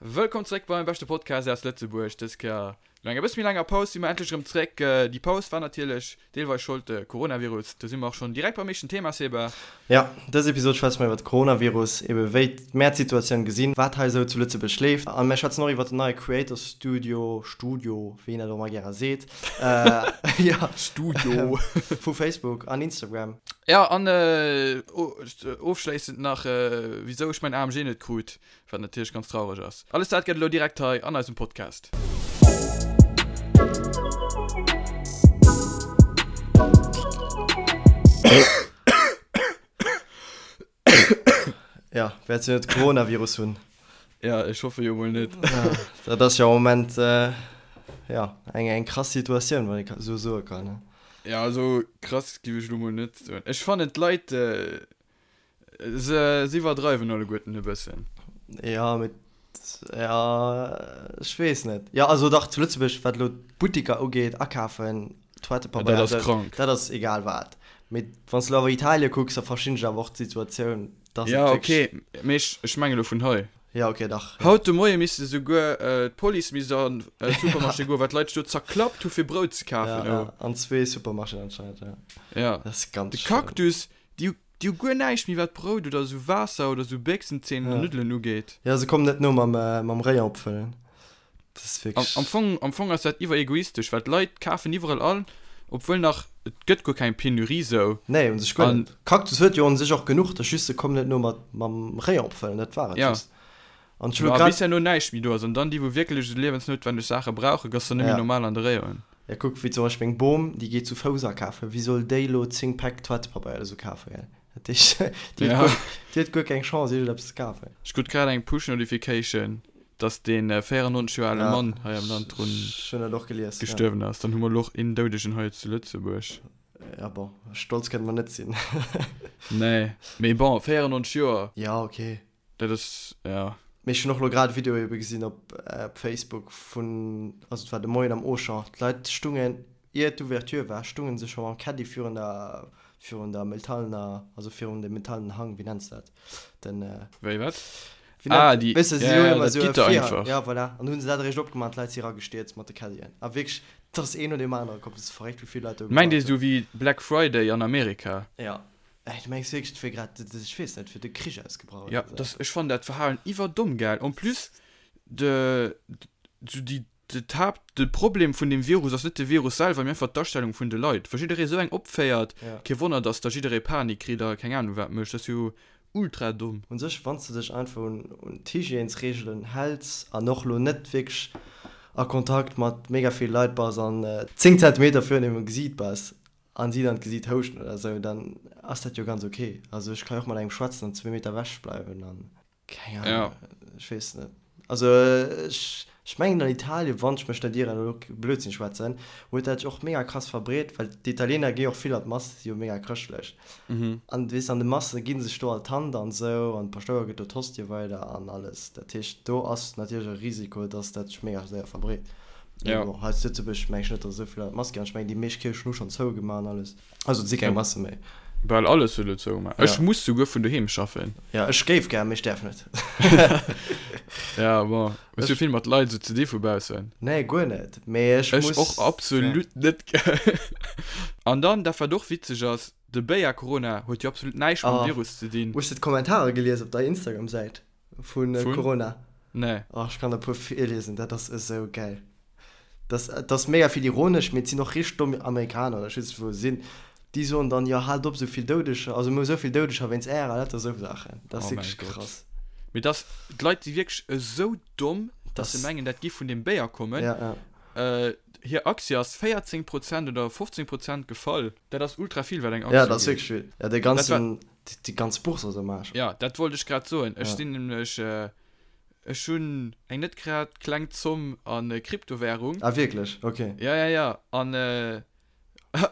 Wëllkomm zréck beim beschte Podcast aus Lëtzebuerg. Dës Kéier no enger bësse méi laanger Paus si mer endlech erëm zréck. Déi Paus war natierlech deelweis Schold de Coronavirus. Do si mer och schonn direkt beim éischten Thema, Seba. Jo, dës Episod schwätze mer iwwer de Coronavirus, ebe wéi mär d'Situatioun gesinn, wat hei esou zu Lëtzebuerg leeft a mär schwätzen och iwwer den neie Creator Studio, Studio, wéi een dat och ëmmer gäre seet, jo, Studio, vu Facebook an Instagram. Jo, an ofschléissend nach, wisou ech mäin AMG net krut. Wat natierlech ganz traureg ass. Alles dat gëtt elo direkt hei an eisem Podcast. Ja, wäerts jo net Coronavirus hunn. Ja, ech hoffe jo mol net. Ja, dat ass jo am Moment äh, ja, eng, eng krass Situatioun, wann ee sou soe kann. Ne? Ja, also krass giff ech elo mol net soen. Ech fannen d'Leit, äh, Se iwwerdreiwen alleguerten e bëssen. Ja, mee ja, ech weess net. Ja, also dach, zu Lëtzebuerg, wat elo d'Buttiker ugeet, akafen, Toilettepabeier, dat ass krank. Dat ass egal wat. Mee wann s de elo awer Italie kucks, da verstinn ech awer och d'Situatioun, dass et Ja, okay, mee ech, ech mengen elo vun hei. Ja, okay, dach. Haut de Moie misste souguer d'Police misst an d'Supermarché goen, well d'Leit sech do zerklappt hu fir Brout ze kafen. Ja, ja, an zwee Supermarchéen anscheinend, ja. Ja. Dat ass ganz De Cactus, déi hu Déi hu guer näischt méi wat Brout oder esou Waasser oder esou Béchsenzeen oder Nuddelen ugeet. Jo, se kommen net no mam mam Rayon opfëllen. Dat ass wierklech. Am Fong, am Fong ass dat iwwer egoistesch, well d'Leit kafen iwwerall an, obwuel nach, et gëtt guer keng Penurie sou. Nee, un sech guer net. Cactus huet jo un sech och genuch, dat ass just se kommen net no mat mam Rayon opfëllen, dat war et just. An ech hu lo grad. Bis herno näischt méi do ass an dann déi wou wierklech esou liewensnoutwenneg Saache brauchen, gëss dann net méi normal an de Rayonen. Ja kuck, wéi zum Beispill meng Bom, déi geet zu Fouss akafen, wéi soll déi lo 10 Päck Toilettepabeier oder sou kafen, gell? Dat heescht, déi huet guer, déi huet guer keng Chance iergendeppes ze kafen. Ech krut grad eng Push Notification, dass dee 94 Joer ale Mann hei am Land drun gestuerwen ass. Dann hu mer elo och een Doudegen hei zu Lëtzebuerg. Ja bon, stolz kënne mer net sinn. Nee, mee bon, 94 Joer. Ja, okay. Dat ass, ja. Mee ech hunn och lo grad e Video ebe gesinn op Facebook vun, also et war de Moien am Auchan, d'Leit stungen, ier d'Ouverture war, stungen se scho mam Caddy virun der, virun der metallener, also virun dem metallenen Hang, wéi nenns de dat, den. Wéi wat? Wéi nennt, ah, déi, weess de, si hunn ëmmer esou e Virhang, ja voilà, an hu se dat eréischt opgemaach an d'Leit si eragestierzt mat de Caddien a wierklech, et ass een no deem anere komm, et ass verréckt wéi vill Leit do gewaart hunn. Mengt ee sou wéi Black Friday an Amerika? Ja. Ey, du mengs wierklech, et wier grad, ech weess net, wier de Krich ausgebrach oder esou? Ja, ech fannen dat Verhalen iwwerdomm gell. En plus, de, sou déi, de d'Haapt, de Problem vun deem Virus ass net de Virus selwer, mee einfach d'Astellung vun de Leit. Wa jidderee sou eng opféiert, kee Wonner, dass da jidderee Panik kritt a keng Ahnung wat mécht. Dat ass jo ultra domm. Un sech, wann s de dech einfach un, un d'Hygiènesreegelen häls an och lo net wierklech a Kontakt mat mega vill Leit bass an 10 Zentimeter virun engem Gesiit bass, an si dann d'Gesiit houschten oder sou, dann ass dat jo ganz ok. Also ech ka jo och mat engem schwätzen an zwee Meter ewech bleiwen an keng Ahnung, ech weess net. Also ech ech mengen an Italien, wann ech mech net ieren, elo Blödsinn schwätzen, huet dat sech och mega krass verbreet, well d'Italiener gi jo och vill an d'Mass, si jo mega chrëschtlech an weess an de Masse gi sech do all d'Hand an sou an de Paschtouer gëtt do d'Hostie weider an alles. Dat heescht do ass natierlech e Risiko, dass dat sech mega séier verbreet. Ja. Bon, hei zu Lëtzebuerg meng ech net, datt esou vill Leit Mass ginn. Ech mengen, déi meescht Kierchen hu schonn zougemaach an alles. Also et si keng Masse méi. Bal alles huet elo zougemaach. Ech muss souguer vun doheem schaffen. Ja, ech géif gär, mee ech däerf net. Ja, bon, hues du vill mat Leit esou ze di vu baussen? Nee, guer net. Mee ech muss. Ech och absolut net. An dann, dat wat och witzeg ass, de Béier Corona huet jo absolut näischt mam Virus ze dinn. Hues de d'Kommentare gelies op der Instagram-Säit? Vun Corona? Nee. Oh, ech kann der e puer virliesen, dat ass esou gäil. Dat, dat ass mega vill ironesch, mee et sinn och richteg domm Amerikaner oder ech weess net wou se sinn, déi soen dann, jo haalt op esou vill Doudeger, also mir hu esou vill Doudeger wéinst ärer, lauter esou Saachen. Dat ass Oh mäi wierklech Gott. krass. Mee dass, d'Leit si wierklech esou domm, dass se mengen dat giff vun deem Béier kommen. Ja, ja. Hir Aktie ass 14 Prozent oder 15 Prozent gefall. Dat ass ultra vill wat eng Aktie Ja, dat ass wierklech vill. Ja, de ganzen, Déi ganz Bourse ass am Aarsch. Ja, dat wollt ech grad soen. Ech sinn nämlech, ech hunn eng net grad kleng Zomm a Kryptowährung. Ah wierklech? Ok. Ja, ja, ja. An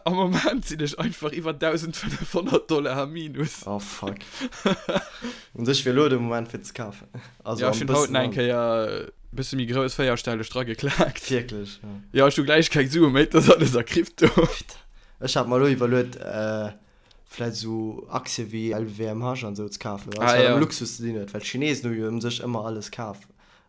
am Moment sinn ech einfach iwwer 1.500 Dollar am Minus. Oh fuck. Un sech wier elo de Moment fir ze kafen. Also ja, ech hunn haut nach eng Kéier e bësse méi grouss véierstelleg drageklaakt. Wierklech? Ja. Ja, ech hu gläich keng Sue méi, dat ass alles a Krypto. Ech hat mer elo iwwerluet, vläit esou Aktie wéi LVMH an esou ze kafen, alles wat mam Luxus ze dinn huet, well d'Chinesen hu jo ëm sech ëmmer alles kaf.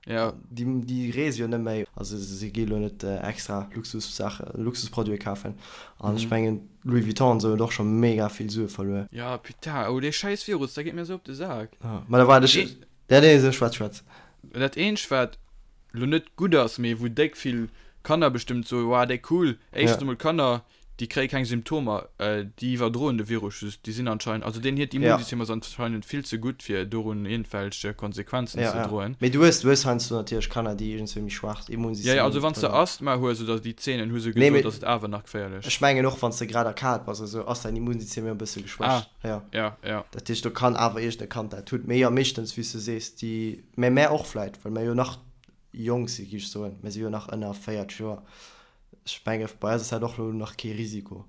Ja. Déi, déi reese jo net méi. Also si gi lo net extra Luxussaachen, Luxusproduite kafen. An ech mengen, Louis Vuitton an esou huet och scho mega vill Sue verluer. Ja, putain, oh dee schäiss Virus, dat geet mir esou op de Sak. Ja, ma da waart ech. Ja, nee, so, schwätz, schwätz. Dat eenzegt wat lo net gutt ass, mee wou déck vill Kanner bestëmmt soen, Wow, déck cool. Éischtens emol d'Kanner, déi kréie keng Symptomer, déi iwwerdroen de Virus just, déi sinn anscheinend, also deen hiert Immunsystem ass anscheinend vill ze gutt fir dorun iergendwelch Konsequenzen ze droen. Mee du hues, du hues heiansdo natierlech Kanner, déi iergendswéi méi schwaacht Immunsystem hunn. Jo, jo, also wann s de Asthma hues oder déi Zeenen, hu se gesot, ass et awer nach geféierlech. Ech mengen och, wann s de grad erkaalt bass oder sou, ass däin Immunsystem jo e bësse geschwächt. Ah, jo, jo. Dat heescht, do kann awer iergend e Kand dat hunn. Mee jo, meeschtens, wéi s du sees, déi, mä mär och vläit, well mär jo nach jonk sinn, géif ech soen, mär si jo nach ënner 40 Joer. Ech menge bei eis ass dat och elo nach kee Risiko.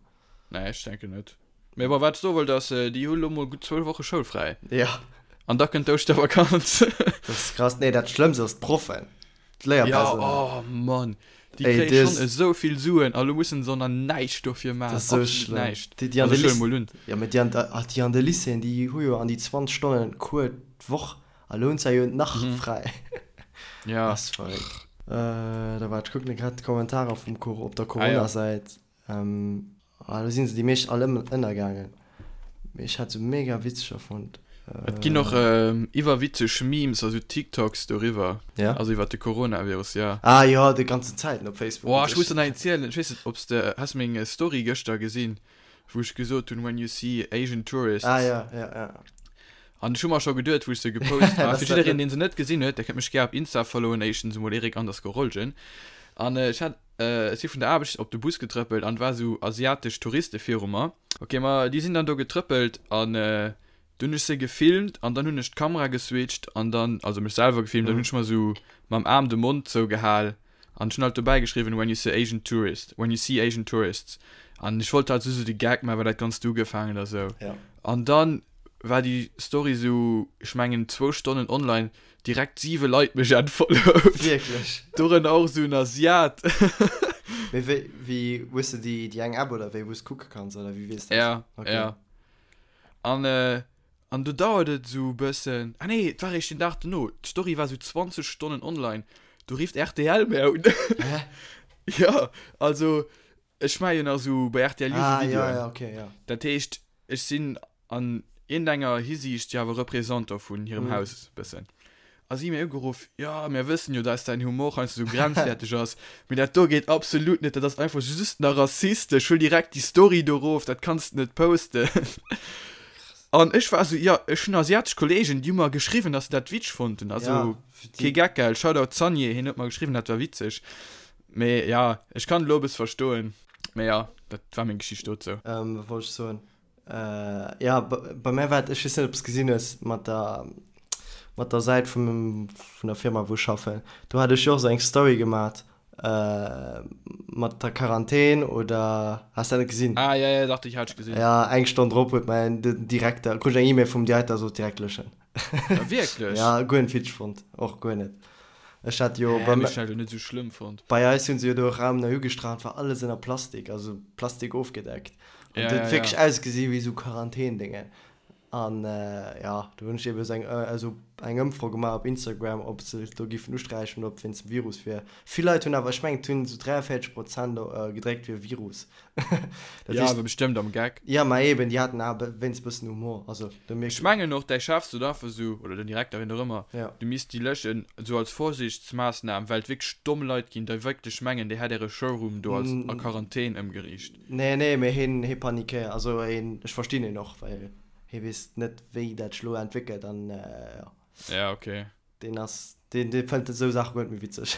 Nee, ech denken net. Mee bon, wat ech soe wollt ass, déi hu lo mol gutt zwou Woche schoulfräi. Ja. An da kënnt d'Ouschtervakanz. Dat ass krass. Nee, dat Schlëmmst ass d'Proffen, d'Léierpersonal. Ja, oh Mann, déi kréie schonn esou vill Suen a lo mussen se och nach näischt dofir maachen. Dat ass esou Absolut schlëmm. näischt. Déi, déi an Also de ech huele mol un. Ja, mee déi an, déi an de Lycéeën, déi hu jo an déi 20 Stonnen Cours d'Woch. A lo hunn se jo nach fräi. Ja. Ass verréckt. Da waart, ech kucken grad d'Kommentarer vum Cor op der Corona-Säit. Ah, do sinn se déi meescht all ënnergaangen. Mee ech hat se mega witzeger fonnt. Et ginn och iwwerwitzeg Memes a sou TikToks doriwwer. Ja? Also iwwer de Coronavirus, ja. Ah jo, déi ganzen Zäiten op Facebook. Boah, ech muss der nach eent zielen. Ech weess net, ob s de, has de meng Story gëschter gesinn, wou ech gesot hunn, when you see Asian tourists. Ah ja, ja, ja. An ech hu mer scho geduet, wou ech se gepost hat, fir jiddereen, deen se net gesinn huet, der kënnt mech gär op Insta followen, éischtens emol Eric underscore Rolgen. An ech hat, ech si vun der Aarbecht op de Bus getrëppelt an et war esou asiatesch Touriste viru mer. Ok, ma déi sinn dann do getrëppelt an du hunn ech se gefilmt an dann hunn ech d'Kamera geswitcht an dann, also mech selwer gefilmt, dann hunn ech mer esou mam Aarm de Mond zougehal an ech hunn halt dobäi geschriwwen, when you see Asian tourist, when you see Asian tourists. An ech wollt halt esou de Gag maachen, well dat Ganzt ugefaangen a sou. An dann war déi Story sou, ech mengen zwou Stonnen online, direkt 7 Leit mech entfollowt. Wierklech? Dorënner och sou en Asiat. Mee wéi, wéi, hues de déi, déi eng App oder wéi, wou s kucke kanns oder wéi weess dat? Ja, Okay. ja. An, an do dauert et sou e bëssen, ah nee, et war eréischt den Dag dono, d'Story war sou 20 Stonnen online, do rifft rtl mär un. Hä? Ja, also ech maache jo nach sou bei rtl Youth Ah, ja, Videoen. ja, okay, ja. Dat heescht, ech sinn an iergendenger Hisiicht jo awer Représentant vun hirem Haus bëssen. A si hu mir ugeruff, jo, mir wëssen jo, dass däin Humor heiansdo sou grenzwäerteg ass, mee dat do geet absolut net, dat ass einfach just nach rassistesch, huel direkt déi Story do erof, dat kanns de net posten. An ech war sou, jo, ech hunn asiatesch Kollegen, déi hu mer geschriwwen, dass se dat witzeg fonnten, also kee Geck, gell, Shoutout Sanje, hien huet mer geschriwwen, dat war witzeg. Mee jo, ech kann et elo e bësse verstoen, mee jo, dat war meng Geschicht dozou. Wat wollt ech soen? Äh, ja, bei mär war et, ech weess net, ob s gesinn hues, mat der, mat der Säit vum, vun der Firma, wou ech schaffen. Do hat ech jo och esou eng Story gemat, äh, mat der Quarantän oder, has dat net gesinn? Ah, ja, ja, dach, déi hat ech gesinn. Ja, eng Stonn drop huet mäin, den Direkter, krut ech eng E-Mail vum Direkter, sot direkt löschen. Ah, wierklech? Ja, guer net witzeg fonnt, och guer net. Ech hat jo Hä, bei, mee ech hat jo net esou schlëmm fonnt. bei eis hunn se jo do e Raum nei ugestrach, war alles ënner Plastik, also Plastik ofgedeckt. An Ja, et huet ja, wierklech ja. ausgesi wéi esou Quarantändéngen. An ja, do hunn ech eben esou eng, esou eng Ëmfro gemaach op Instagram, ob se do giffen usträichen oder ob wéinst dem Virus wier. Vill Leit hunn awer, ech mengen et hunn esou 43 Prozent gedréckt fir Virus. Dat Ja, awer bestëmmt am Geck. Ja, ma eben, déi haten awer wéinst bëssen Humor, also do mierkt. Ech mengen och, däi Chef sot einfach esou, oder den Direkter, wien och ëmmer, Ja. du misst déi löschen, esou als Vorsichtsmaassnam, well et wierklech domm Leit ginn, déi wierklech mengen, dir hätt äre Showroom do als a Quarantän ëmgeriicht. Nee, nee, mee hien, hie panikéiert, also hien, ech verstinn hien och, well hie weess net, wéi dat sech elo entwéckelt an jo. Ja, okay. Deen ass, deen, dee fënnt esou Saache guer net méi witzeg,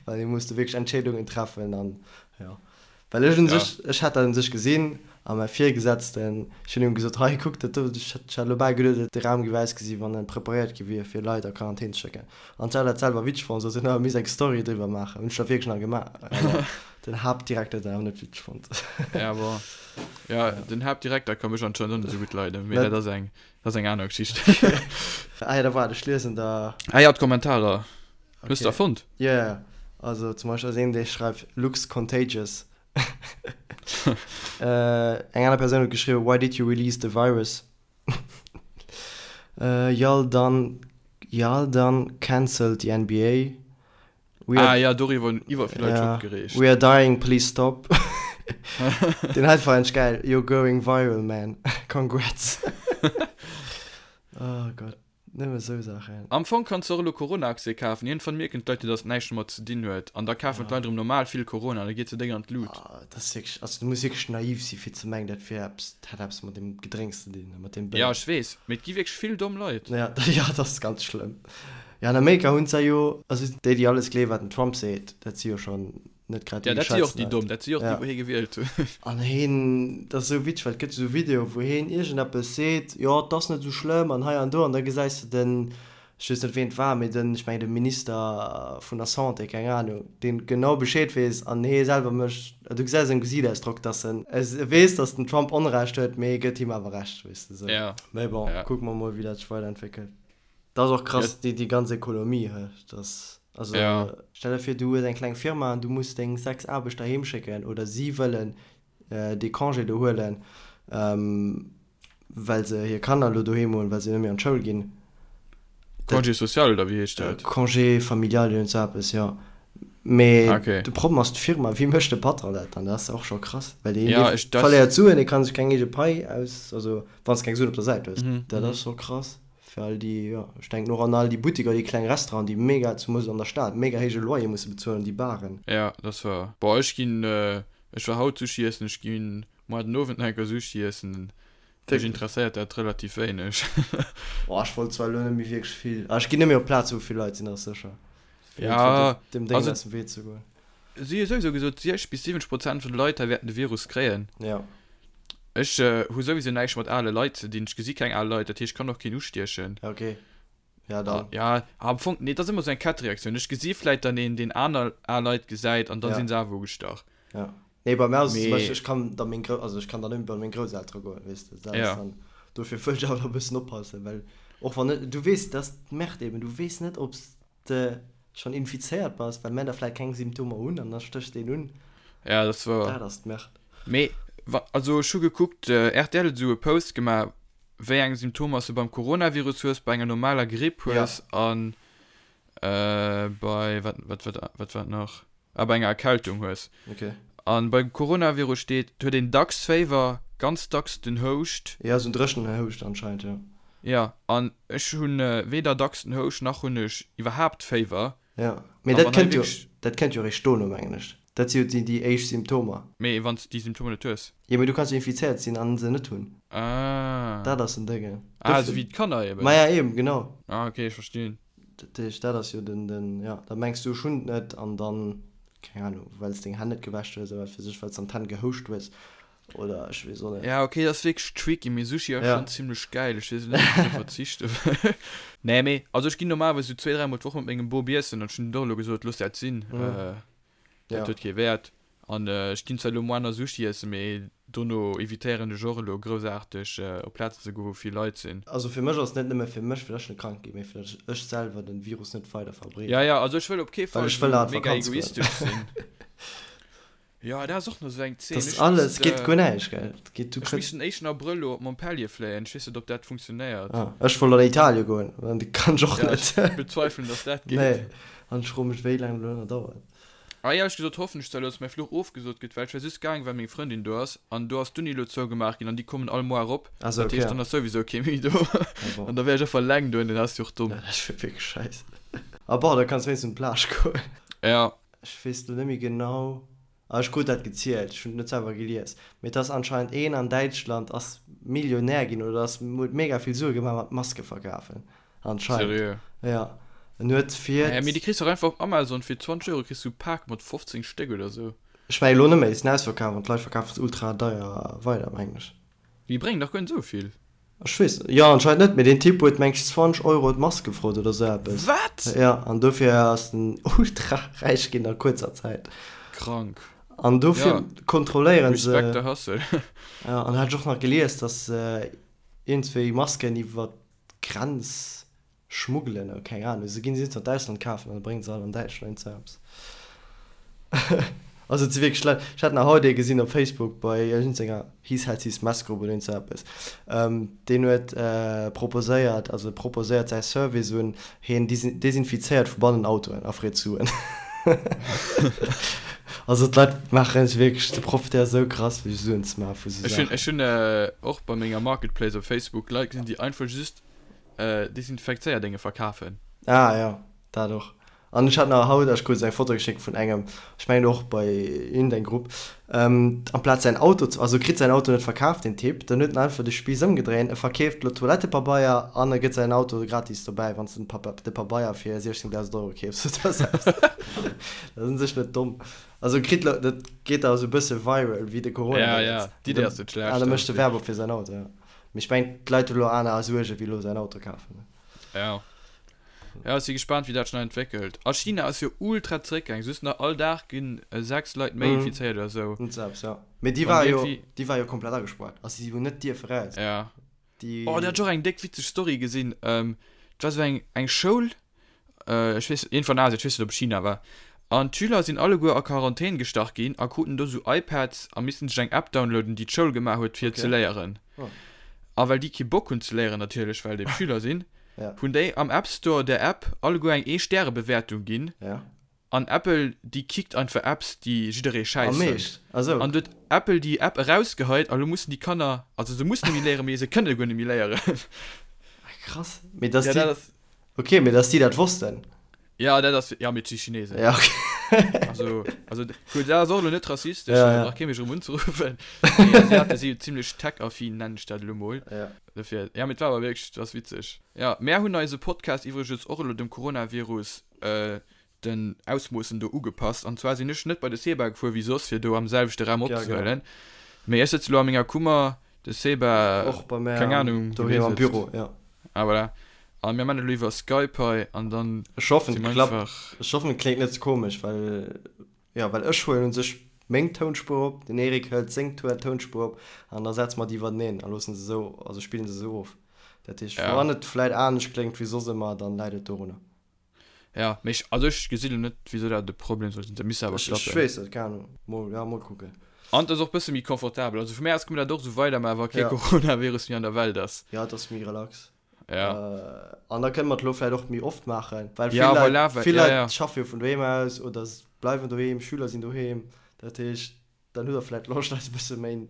well hie muss do wierklech Entscheedungen treffen an jo. Well ech un Ja. sech, ech hat dat un sech gesinn a mäi Virgesetzten, ech hunn him gesot, hei kuck dat do, ech hat elo bal geduet, de Raum géif ausgesi wann en preparéiert gi wier fir Leit a Quarantän ze schécken. An ech hat dat selwer witzeg fonnt, sot hien, oh, mir misst eng Story driwwer maachen. Hunn ech da wierklech nach gemaach, awer den Haaptdirekter huet dat awer net witzeg fonnt. Ja, bon. Ja, den Haaptdirekter ka mech anscheinend och net esou gutt leiden, mee Net? dat ass eng Dat ass eng aner Geschicht. Ah ja, da waart, ech liesen der. Ah ja, d'Kommentarer. Hues de der fonnt? Jo, jo. Also zum Beispill ass een, dee schreift, Looks contagious. Eng aner Persoun huet geschriwwen, Why did you release the virus? Y'all done, y'all done cancelled the NBA. We are, ah ja, doriwwer hunn iwwer vill Leit sech opgereegt. We are dying, please stop. Deen hei war endlech geil, You're going viral, man. Congrats. Oh Gott, nëmme sou Saachen. Am Fong kanns de och elo Corona-Aktie kafen. Iergendwann mierken d'Leit jo, dass et näischt domat ze dinn huet. An da kafen d'Leit erëm normal vill Corona an da geet se déck an d'Lut. Ah, dat ass wierklech, also du muss wierklech naiv si fir ze mengen, dat wier eppes, dat hätt eppes mat deem Gedrénks ze dinn a mat deem Béier. Ja, ech weess, mee et gi wierklech vill domm Leit. Ja, ja, dat ass ganz schlëmm. Jo, an Amerika hunn se jo, also déi, déi alles gleewen, wat den Trump seet, dat si jo schonn net grad déi Ja, dat si och déi domm, dat si och déi, wou hie gewielt hunn. An hien, dat ass esou witzeg, well et gëtt esou Videoe wou hien iergendeppes seet, jo, et ass net esou schlëmm an hei an do, an da gesäis de den, ech weess net ween et war, mee den, ech mengen de Minister vun der Santé, keng Anung, deen genau Bescheed weess an hie selwer mécht, du gesäis am Gesiichtausdrock, dass en weess, dass den Trump Onrecht huet, mee hie gëtt him awer Recht, weess de esou. Mee bon, kucke mer mol, wéi dat sech weiderentwéckelt. Dat ass och krass, déi ganz Ekonomie, he, dass, also stell der vir, du hues eng kleng Firma an du muss deng 6 Aarbechter heem schécken oder si wëllen dee Congé do huelen, well se hir Kanner elo doheem hunn, well se net méi an d'Schoul ginn. Congé social oder wéi heescht dat? Congé familial, iergend sou eppes, jo. Mee de Problem ass d'Firma, wéi mécht de Patron dat dann? Dat ass och scho krass, well dee verléiert Suen, dee ka sech keng eege Pai aus, also wann s de keng Suen op der Säit hues. Dat ass scho krass. Fir all déi, jo, ech denken och an all déi Buttiker, déi kleng Restauranten, déi mega, zemoos an der Stad, mega héije Loyer musse bezuelen, déi Baren. Ja, dat ass wouer. Boah, ech ginn, ech war haut Sushi iessen, ech ginn moar den Owend nach eng Kéier Sushi iessen. Mech interesséiert dat relativ wéineg. Boah, ech wollt zwar elo net méi wierklech vill, ah, ech ginn net méi op Plaze wou vill Leit sinn, dat ass sécher. Fir Ja, dem Déngen also aus dem Wee ze goen. Si hu souwisou gesot, 60 bis 70 Prozent vun de Leit hei wäerten de Virus kréien. Ja. Ech hu souwisou näischt mat ale Leit ze dinn. Ech gesi keng al Leit, dat heescht, ech kann och keen ustiechen. Ja, okay. Ja, dann. Ja, am Fong, nee, dat ass ëmmer esou eng Kettereaktioun. Ech gesi vläit dann een, deen aner al Leit gesäit an da Ja. si se awer ugestach. Ja. Nee, bei mir ass et zum Mee. Beispill, ech kann da meng Grou-, also ech kann dann net méi bei meng Grousseltere goen, weess de. Dat ass Ja. dann, dofir wëll ech awer e bëssen oppassen, well och wann net, du weess, dat ass d'Merde eben, du weess net, ob s de schonn infizéiert bass, well mär da vläit keng Symptomer hunn an da stéchs de een un. Ja, dat ass wouer. Dat ass d'Merde. Mee wa, also ech hu gekuckt, rtl huet esou e Post gemaach, wéi eng Symptomer s de beim Coronavirus hues, bei enger normaler Gripp hues an bei, wat, wat, wat, wat war et nach? Ah, bei enger Erkältung hues. Okay. An beim Coronavirus steet, et huet een dacks Féiwer, ganz dacks den Houscht. Ja, esou en dréchenen Houscht anscheinend, jo. Ja, an ech hunn weder dacks den Houscht, nach hunn ech iwwerhaapt Féiwer. Ja, mee dat kënnt jo, dat kënnt jo eréischt dono, mengen ech. Dat si jo déi, déi éischt Symptomer. Mee wann s de déi Symptomer net hues? Jo, mee du kanns jo infizéiert sinn an se net hunn. Ah. Dat ass den Déngen. Ah, esou wéi d'Kanner eben. Maja, eben, genau. Ah, okay, ech verstinn. Dat heescht, dat ass jo den, den, jo, da mengs du, ech hunn et net an dann, keng Ahnung, well s deng Hänn net gewäsch hues oder wat weess ech, well s an d'Hänn gehouscht hues oder ech weess och net. Ja, okay, dat ass wierklech tricky, mee Sushi ass schonn zimlech gäil, ech weess net, ob ech drop verzichte wëll. Nee, mee, also ech ginn normalerweis esou zwee, dräimol d'Woch mat mengem Bop iessen an ech hunn och elo gesot, looss dat sinn. Dat huet kee Wäert. An ech ginn zwar elo moaner Sushi iessen, mee dono evitéieren ech och elo groussaarteg op Plazen ze goen, wou vill Leit sinn. Also fir mech ass et net nëmme fir mech, fir datt ech net krank ginn, mee fir datt ech selwer den Virus net weider verbreeden. Ja, ja, also ech wëll op kee Well Fall ech wëll esou nach an mega d'Vakanz goen. egoistesch sinn. Jo, dat ass och nach esou eng Zeen. Dat ass Ech alles, misst, et geet guer näischt, gell? Et geet, du ech kritt. misst den éischten Abrëll elo op Montpellier fléien. Ech weess net, ob dat funktionéiert. Ah, ech wollt an Italien goen, an dat kann ech och Ja, net. ech bezweifelen, datt dat geet. Nee, an ech froe mech, wéi laang dat elo nach dauert. Ah éierlech gesot hoffen ech zwar elo dass mäi Fluch ofgesot gëtt, well ech war just gaang well meng Frëndin do ass an do ass d'Uni elo zougemaach ginn an déi kommen all Mois erop, Ah sou, dat heescht okay. dann ass souwisou kee méi do Ah bon. an da wär ech einfach eleng do an dat ass jo och domm. Ja, dat wier wierklech scheiss. Ah bon, da kanns wéinstens un d'Plage goen. Ja. Ech weess elo net méi genau, ah ech krut dat gezielt, ech hunn et net selwer gelies, mee et ass anscheinend een an Däitschland ass Millionär ginn oder ass huet mega vill Sue gemaach mat Maske verkafen. Anscheinend. Seriö? Ja. En huet fir. Naja, mee déi kriss du och einfach op Amazon fir 20 Euro kriss du e Pak mat 15 Stéck oder sou. Ech mengen elo net méi, sinn ausverkaf an d'Leit verkafen se ultra deier weider, mengen ech. Déi bréngen dach guer net esou vill. Ech weess net, jo anscheinend net, mee deen Typ huet meng ech 20 Euro d'Mask gefrot oder sou eppes. Wat? Ja, an dofir ass en ultra räich ginn a kuerzer Zäit. Krank. An dofir Ja. kontrolléieren se. Respect the hustle. Ja, an hat ech och nach gelies, dass se iergendswéi Masken iwwert Grenz schmuggelen oder keng Ahnung, se ginn se an d'Ausland kafen an bréngen se all an Däitschland iergend eppes. Also et si wierklech Leit, ech hat nach haut ee gesinn op Facebook bei iergendenger He Sells His Mess Grupp oder iergend eppes, deen huet proposéiert, also proposéiert säi Service un, hien desinfizéiert vu bannen Autoen a freet Suen. Also d'Leit maachen sech wierklech, se profitéiere sou krass fir Suen ze maache vu sou Ech hunn, Saachen. ech hunn och bei menger Marketplace op Facebook Leit gesinn, déi einfach just Desinfekzéierdénge verkafen. Ah jo, dat och. An ech hat nach haut, ech krut eng Foto geschéckt vun engem, ech mengen och bei iergendeng Grupp, amplaz säin Auto ze, also kritt säin Auto net verkaf deen Typ, dann huet en einfach de Spiiss ëmgedréint, e verkeeft elo Toilettepabeier an e gëtt säin Auto gratis dobäi, wann s de de Pabeier fir 16.000 Euro keefs oder esou eppes. Dat ass un sech net domm. Also kritt elo, dat geet da esou e bësse viral wéi de Corona. Ja, ja, d'Idee ass net schlecht. An da mécht e Werbung fir säin Auto, jo. Mee ech mengen d'Leit hu elo aner Suerge wéi elo säin Auto kafen. Ja. Ja, ech si gespaant wéi dat sech nach entwéckelt. A China ass jo ultra zeréckgaang, just nach all Dag ginn 6 Leit méi infizéiert oder sou. Net selbst, ja. Mee déi war jo, déi war jo komplett agespaart, also si hunn net dierfe raus. Ja. Déi. Oh, do hat ech och eng déck witzeg Story gesinn. Et war sou eng, eng Schoul, ech weess, iergendwou an Asien, ech weess net ob et China war. An d'Schüler sinn alleguer a Quarantän gestach ginn a kruten do sou iPads a missten sech eng App downloaden, déi d'Schoul gemaach huet fir ze léieren. A well déi kee Bock hunn ze léieren natierlech, well et Schüler sinn, hunn déi am App Store der App alleguer eng Ee-Stäre-Bewäertung ginn. An Apple, déi kickt einfach Apps, déi jidderee schäiss fënnt. An du huet Apple déi App erausgeheit a lo mussen déi Kanner, also se mussen net méi léieren, mee se kënne guer net méi léieren. Krass. Mee dass déi, okay, mee dass déi dat wossten. Ja, dat ass, ja, mee et si Chinesen. Ja, okay. Also, also, gutt, dat ass och elo net rassistesch, ja, ja. brauch kee mech erëm unzeruffen. Mee Asiate si jo zimlech tech-affin, nennen ech dat elo mol. Ja. Dofir, ja, mee et war awer wierklech, et ass witzeg. Ja, mär hunn eise Podcast iwwregens och elo dem Coronavirus, äh, den Ausmoossen do ugepasst. An zwar sinn ech net bei de Seba gefuer wéi soss, fir do am selwechte Raum Ja, genau. opzehuelen. Mee ech sëtze lo a menger Kummer, de Seba, Och bei mär keng Ahnung, wou doheem hie am sëtzt. Büro, ja. Ah, voilà. A mir man elo iwwer Skype hei an dann Ech hoffen si et mer klappt. einfach. Ech hoffen et kléngt net ze komesch, well jo well ech huelen un sech meng Tounspuer op, den Eric hëlt seng Tounspuer op an da setze mer déi iwwerteneen a loossen se esou, also spillen se esou of. Dat heescht Ja. wann et vläit anescht kléngt wéi soss ëmmer, dann läit et dorunner. Ja, mee ech, also ech gesinn elo net wisou dat e Problem soll sinn, dat misst awer Ech ech klappen. weess net, keng Ahnung. Mol, ja mol kucken. An et ass och bësse méi confortabel, also vu mär aus kënne mer dat och esou weidermaachen, wa kee Ja. Coronavirus méi an der Welt ass. Ja, et ass méi relax. Ja. An da kënne mer et elo vläicht och méi oft maachen, well vill Ja, Leit, voilà, well, vill ja, Leit ja. schaffe jo vun doheem aus oder bleiwen doheem, Schüler sinn doheem. Dat heescht, dann hutt der vläicht Loscht, eis e bësse méi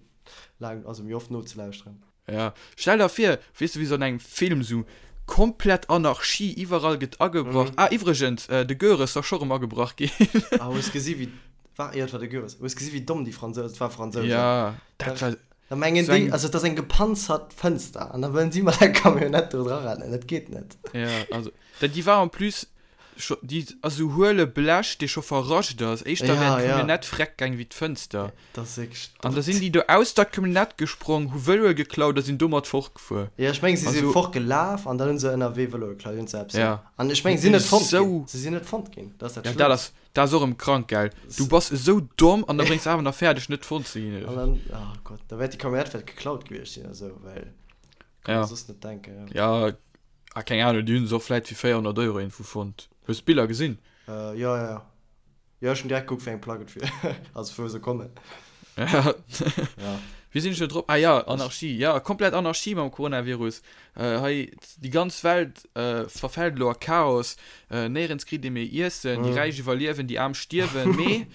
laang, also méi oft nozelauschteren. Ja, stell der vir, weess de, wéi sou an engem Film, sou komplett Anarchie, iwwerall gëtt agebrach. Ah, iwwregens, de Goeres ass scho rëm agebrach ginn. Ah, hues gesi wéi, war, jo, et war de Goeres, hues gesi wéi domm déi Fransousen, et war Fransousen. Ja, dat war. Da mengen Sou déi, eng. also et ass eng gepanzert Fënster an da wëllen si mat der Camionnette do dra rennen, dat geet net. Ja, also, dat déi war en plus scho, déi ass esou huele Blech, dee scho verrascht ass, éischter wär Ja, ja. d'Camionnette freck gaang wéi d'Fënster. Dat ass wierklech An da sinn déi do aus der Camionnette gesprong, hu Vëloe geklaut a sinn domat fortgefuer. Ja, ech mengen, si si Also. fortgelaf an dann hu se ënnerwee Vëloe geklaut, iergend sou eppes, Ja. An ech mengen, si sinn net fonnt ginn. Esou. Si sinn net fonnt ginn, dat ass dat Ja, dat Schlëmmst. ass, Dat ass och erëm krank, gell? Du bass esou domm an da bréngs awer nach fäerdeg net fonnt ze ginn. An dann, oh Gott, da wäert déi Camionnette vläicht geklaut gewiescht sinn oder sou, well kann Ja. mer soss net denken, ja. Ja, ah, keng Ahnung, déi hunn se och vläicht fir 400 Euro iergendwou fonnt. Hues d'Biller gesinn? Äh, jo, jo, jo. Jo, ech hunn direkt gekuckt, wéi eng Plack et wier, also vu wou se kommen. Ja. Ja. Wéi sinn ech do drop? Ah ja, Anarchie. Ja, komplett Anarchie mam Coronavirus. Hei, déi ganz Welt verfält elo a Chaos. Néierens kritt ee méi Iessen. Déi Räich iwwerliewen, déi Aarm stierwen. Mee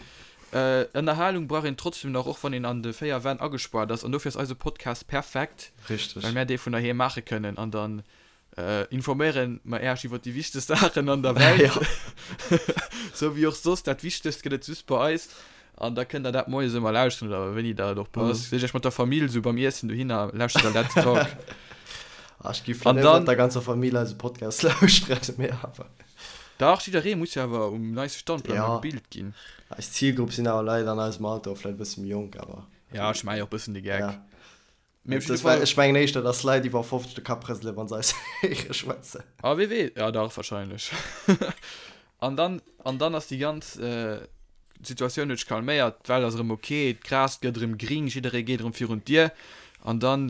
Ënnerhalung brauch een trotzdem nach, och wann een an de 4 Wänn agespaart ass. An dofir ass eise Podcast perfekt, Richteg. well mär dee vun doheem maache kënnen. An dann Informéieren mer Äech iwwer déi wichtegst Saachen an der Welt. Sou wéi och soss, dat Wichtegst gëtt et just bei eis. An da kënnt der dat moies ëmmer lauschteren oder wéini der et och passt. Seet Iech mat der Famill sou beim Iessen dohinner, lauschtert der Let's Talk. Ah, ech gi vläicht net mat der ganzer Famill eise Podcast lauschteren, mee awer. Dach, jidderee muss jo awer um neiste Stand bleiwen a gebilt ginn. Eis Zilgrupp sinn awer Leit an eisem Alter, vläicht e bësse méi jonk, awer. Ja, ech maache jo och e bëssen de Geck. Mee op jidde Fall. Ech mengen éischter, dass Leit iwwer 50 de Kapp rëselen, wa se eis héiere schwätzen. Ah, wee weess. Ja, dach, wahrscheinlech. An dann, an dann ass déi ganz Situatioun huet sech calméiert, d'Welt ass erëm ok, d'Gras gëtt erëm gring, jidderee geet erëm virun d'Dier. An dann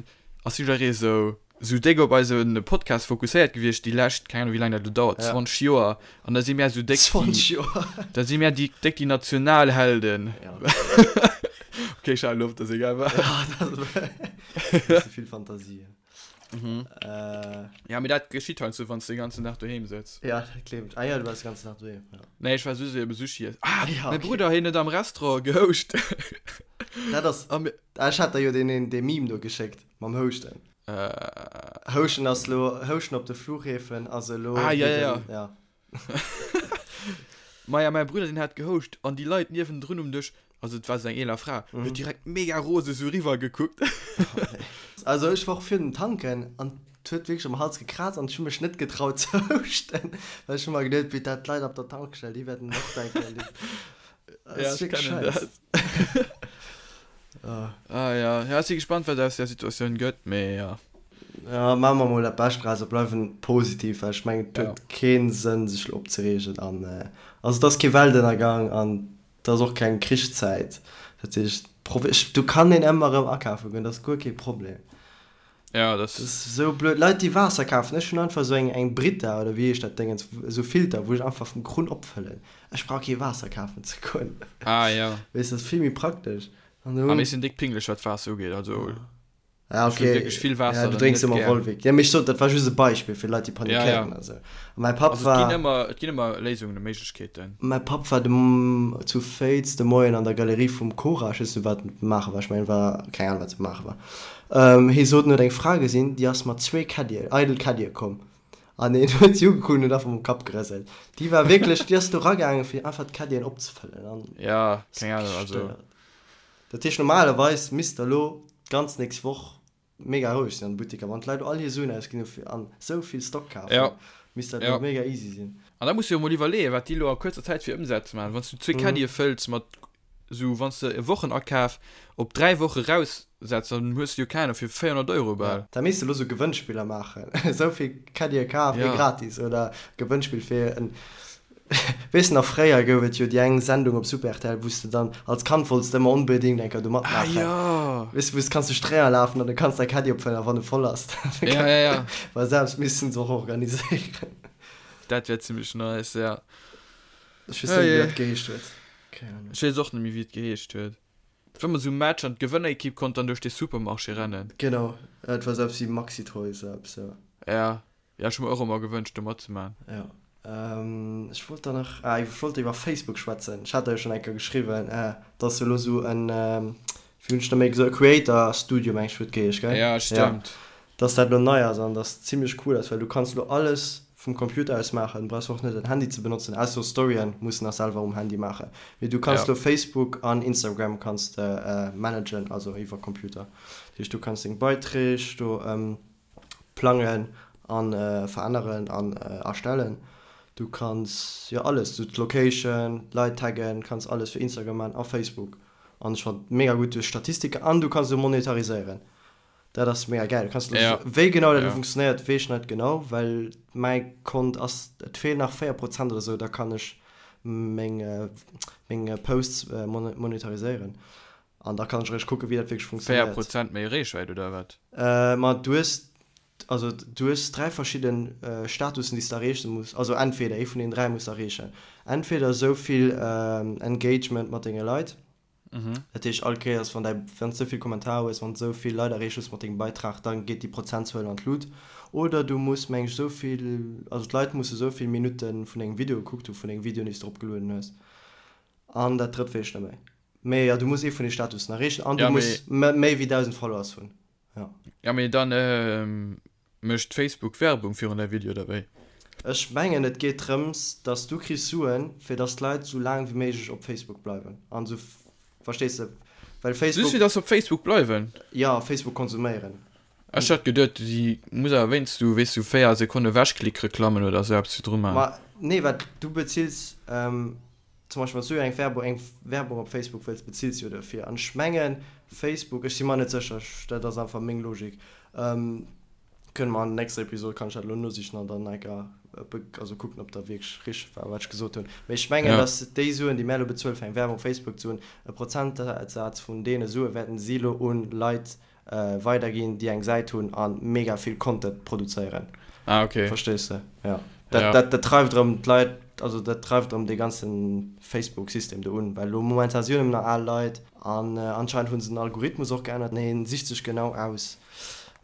ass jidderee sou, sou déck op eise Podcast fokusséiert gewiescht déi lescht, keng Ahnung, wéi laang dat elo dauert, 20 Joer. An da si mär sou déck déi. 20 Joer! Da si mär déi déck déi Nationalhelden. Ja. Okay, ech halen op, dat ass egal wat. Ja, dat ass e bësse vill Fantasie. Mhm. Äh, ja, mee dat geschitt heiansdo, wann s de den ganzen Dag doheem sëtz. Ja, dat gleef ech. Ah ja, du waars de ganzen Dag doheem, ja. Nee, ech war just ebe Sushi iessen. Ah, ja, okay. Mäi Brudder, hien huet am Restaurant gehouscht. Dat ass. Ah, ech hat der jo deen, dee Meme do geschéckt mam Houschten. Äh. Houschten ass lo, Houschten op de Flughäfen ass elo. Ah, ja, ja, ja. ja. Maja, mäi Brudder, deen hat gehouscht an déi Leit niewendrun um Dësch, also et war esou eng eeler Fra, huet direkt mega rose esou eriwwer gekuckt. Also ech war och virun dem Tanken an et huet wierklech am Hals gekraazt an ech hu mech net getraut ze houschten, well ech hu mer geduet, wéi dat d'Leit op der Tankstell, déi wäerten och denken, déi, dat ass wierklech scheiss. Ah ja, ja, ech si gespannt, wat aus där Situatioun gëtt, mee ja. Ja, maache mer mol dat Bescht draus a bleiwen positiv, well ech mengen, et huet kee Sënn, sech elo opzereegen an, also et ass kee Weltënnergang an et ass och keng Krichszäit. Dat heescht, do kann een ëmmer erëm akafe goen, dat ass guer kee Problem. Ja, dat ass esou blöd. Leit, déi Waasser kafen, ech hunn einfach esou eng, eng Brita oder wéi heescht dat Déngens, esou Filter, wou ech einfach vum Krunn opfëllen. Ech brauch kee Waasser kafen ze goen. Ah, ja. Weess, dat ass vill méi praktesch. An do. Ah, mir sinn déck pinglech, wat Waasser ugeet, also. Ja, okay. Ech wierklech vill Waasser. Ja, du drénks ëmmer Volvic. Ja, mee ech sot, dat war just e Beispill fir Leit, déi panikéieren a sou. A mäi Papp war. Also, et ginn ëmmer, et ginn ëmmer Léisungen a Méiglechkeeten. Mäi Papp war de, zu Féiz de Moien an der Galerie vum Cora, ech weess net, wat en maache war, ech mengen, war, keng Ahnung, wat se maache war. Hie sot, en huet eng Fra gesinn, déi ass mat zwee Caddien, eidel Caddie komm. An hien huet si ugekuckt an huet einfach mam Kapp gerëselt. Déi war wierklech, déi ass do ragaangen, fir einfach d'Caddien opzefëllen an. Ja, keng Ahnung, also. Dat heescht, normalerweis misst der elo d'ganz nächst Woch mega roueg sinn an de Butteker. Wann d'Leit all hir Suen ausginn hu fir an esou vill Stock kafen, misst dat elo mega easy sinn. An da muss de jo mol iwwerleeën, wat déi elo a kuerzer Zäit fir Ëmsätz maachen. Wann s du zwee Caddie fëlls mat esou, wann s de e Wochenakaf op 3 Woche raussetz, dann hues de jo keng Ahnung fir 400 Euro bal. Da misst de elo sou Gewënnspiller maachen, esou vill Caddie kaf, ee gratis oder Gewënnspill fir en Weess de nach, fréier gouf et jo déi eng Sendung op Super rtl, wou s de dann als Kand wollts de ëmmer onbedéngt eng Kéier do matmaachen. Ah jo! Weess de, wou s de kanns duerch d'Réier lafen an du kanns däi Caddie opfëllen a wann e voll ass, dann Ja, ja, ja. Well selbst missten se och organiséieren. Dat wär zimmlech nice, ja. Ech weess net méi, wéi dat geheescht huet. Keng Ahnung. Ech weess och net méi, wéi et geheescht huet. Et war emol esou e Match an d'Gewënnerekipp konnt dann duerch de Supermarché rennen. Genau, et war esou eppes wéi Maxi Toys oder eppes, jo. Ja. Ja, ech hu mer och ëmmer gewënscht do matzemaachen. Jo. Ech wollt der nach, ah, ech wollt iwwer Facebook schwätzen. Ech hat der jo schonn eng Kéier geschriwwen, dass jo elo esou en, wéi hunn ech der méi gesot, e Creator Studio, meng ech, huet geheescht, gell? Ja, stëmmt. Dass dat elo nei ass an dass zimmlech cool ass, well du kanns elo alles vum Computer aus maachen, du brauchs och net en Handy ze benotzen, ausser Storyen muss de nach selwer um Handy maachen. Mee du kanns elo Facebook an Instagram kanns de managen, also iwwer Computer. Dat heescht, du kanns deng Beiträg do plangen an veränneren an erstellen. Du kanns jo alles, du d'Location, d'Leit taggen, kanns alles fir Instagram man a Facebook an ech fannen mega gutt duerch Statistiken an du kanns elo monetariséieren. Dat ass mega gäil. Du kanns elo, wéi genau dat elo funktionéiert weess ech net genau, well mäi Kont ass, et feelen nach 4 Prozent oder sou, da kann ech meng meng Posts monetariséieren. An da kann ech eréischt kucken, wéi dat wierklech 4 funktionéiert. Prozent méi Reechwäit oder wat? Ma du hues, also du hues 3 verschidden Statussen, déi s de erreeche muss. Also entweder ee vun deenen 3 muss de erreechen. Entweder esou vill Engagement mat denge Leit, dat heescht all Kéiers wann däi, wann s de esou vill Kommentarer hues, wann s de esou vill Leit erreecht hues mat dengem Beitrag, da geet déi Prozentzuel an d'Lut. Oder du muss, meng ech, esou vill, also d'Leit musse esou vill Minutte vun dengem Video gekuckt hu vun dengem Video, déi s de eropgelueden hues. An dat drëtt weess ech net méi. Mee jo, du muss ee vun de Statussen erreechen an du muss méi wéi 1.000 Followers hunn. Jo. Ja mee dann mécht Facebook Werbung virun däi Video oder wéi? Ech mengen et geet drëms dass du kriss Suen fir dass d'Leit sou laang wéi méiglech op Facebook bleiwen an sou, verstees de, well Facebook. Just fir dass se op Facebook bleiwen? Jo, Facebook konsuméieren. Ech hat geduet si muss awer wéinst du weess du 4 Sekonne Ewechklick-Reklammen oder sou eppes virdru man. Ma nee, wat du bezills. Zum Beispill wann s du eng Werbung, eng Werbung op Facebook wëlls, bezills jo dofir. An ech mengen Facebook, ech si mer net sécher, ech, dat ass einfach meng Logik, kënne mer an der nächster Episod, kann ech dat elo nosichen an dann enker be, also kucken, ob dat wierklech richteg war, wat ech gesot hunn. Mee ech mengen, dass déi Suen, déi mär elo bezuelen, fir eng Werbung op Facebook ze hunn, e Prozentsaz vun deene Sue wäerten si elo un Leit weiderginn, déi eng Säit hunn a mega vill Content produzéieren. Ah, okay. Verstees de? Ja. Dat, ja. dat, dat dreift erëm d'Leit, also dat dreift erëm dee ganze Facebook-System do un, well elo momentan si jo nëmmen nach al Leit an anscheinend hu se den Algorithmus och geännert an hien sicht sech genau aus,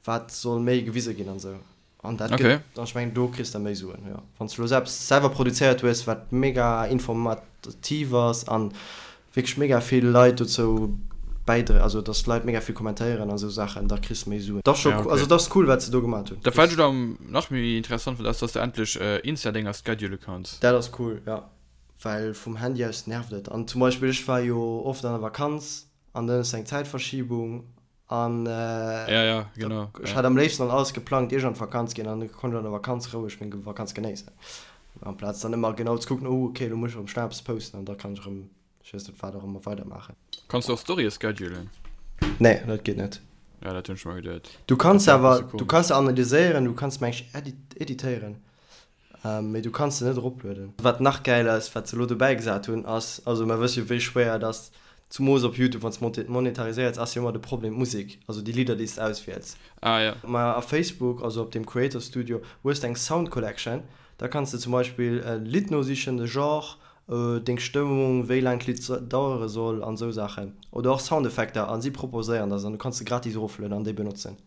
Wat soll méi gewise ginn an esou. An dat gëtt, okay. An ech mengen do kriss de méi Suen, jo. Wann s de elo eppes selwer produzéiert hues, wat mega informativ ass an wierklech mega vill Leit dozou bäidre, also dass d'Leit mega vill kommentéieren a sou Saachen, da kriss de méi Suen. Dat ass scho, ja, okay. Also dat ass cool, wat se do gemat hunn. Dat wat ech elo nach méi interessant fonnt ass, dass de endlech Insta-Dénger schedule kanns. Dat ass cool, jo. Well vum Handy aus nervt et. An zum Beispill ech war jo oft an der Vakanz an dann hues de eng Zäitverschiebung An ja, ja, genau, ech hat am léifsten dann alles geplangt, ier ech an d'Vakanz ginn, an da konnt ech an der Vakanz roueg meng Vakanz genéissen. Amplaz dann ëmmer genau ze kucken, oh okay, elo muss ech erëm schnell eppes posten an da kann ech erëm, ech weess net wat och ëmmer, weidermaachen. Kanns du och Storye schedulen? Nee, dat geet net. Ja, dat hunn ech mer geduet. Du kanns awer, du kanns se analyséieren, du kanns meng ech editéieren. Mee du kanns se net eroplueden. Wat nach gäil ass, wat se elo dobäi gesat hunn, ass, also mer wësse jo wéi schwéier et ass, zumoos op Youtube, wann s de monetariséiers, ass jo ëmmer de Problem d'Musek, also déi Lidder déi s de auswiels. Ah ja. Ma a Facebook, also op dem Creator Studio, hues de eng Sound Collection, da kanns de zum Beispill e Lidd nosichen, de Genre, deng Stëmmung, wéi laang d'Lidd dauere soll an esou Saachen. Oder och Soundeffekter a si proposéieren der se an du kanns se gratis eroflueden an déi benotzen.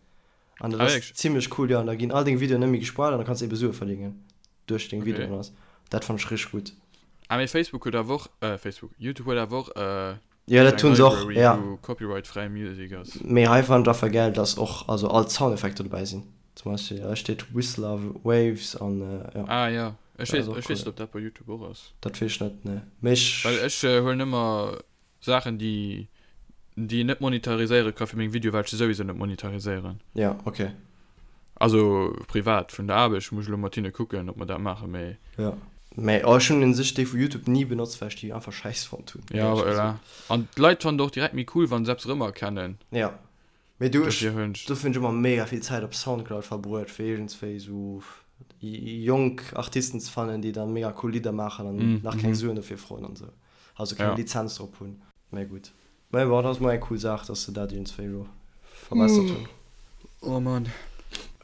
An dat ass zimlech cool, jo. An da ginn all deng Videoen net méi gespoilt an da kanns de ebe Sue verdéngen duerch deng Videoen. Okay. Dat fannt ech richteg gutt. Ah mee Facebook huet awer och, äh Facebook, YouTube huet awer och äh, Jo dat hunn se och, ja. Wou Copyright fräi Music ass. Mee hei fannt ech einfach gäil dass och also all d'Soundeffekter dobäi sinn. Zum Beispill hei steet Whistler Waves an jo. Ah jo, ech weess, ech weess net ob dat bei YouTube och ass. Dat weess ech net, nee. Mee ech. Well ech huelen ëmmer Saachen déi déi een net monetariséiere ka fir meng Videoe well ech se souwisou net monetariséieren. Ja ok. Also privat vun der Aarbecht muss ech elo mat hinne kucken ob mer dat maachen, mee. Ja mee oh ech hunn un sech déi vu Youtube ni benotzt well ech déi einfach schäiss fonnt hunn. Ja voilà an d'Leit fannen et och direkt méi cool wann se eppes erëmerkennen. Ja mee du ech dofir hunn ech ëmmer mega vill Zäit op Soundcloud verbruet fir iergendswéi sou jonk Artisten ze fannen déi dann mega cool Lidder maachen an nach keng Suen dofir froen an sou. Also keng ja. Lizenz drop hunn. Mä gutt. Mä bon, dat ass mol eng cool Saach, dass se dat iergendswéi elo verbessert hunn. Oh Mann.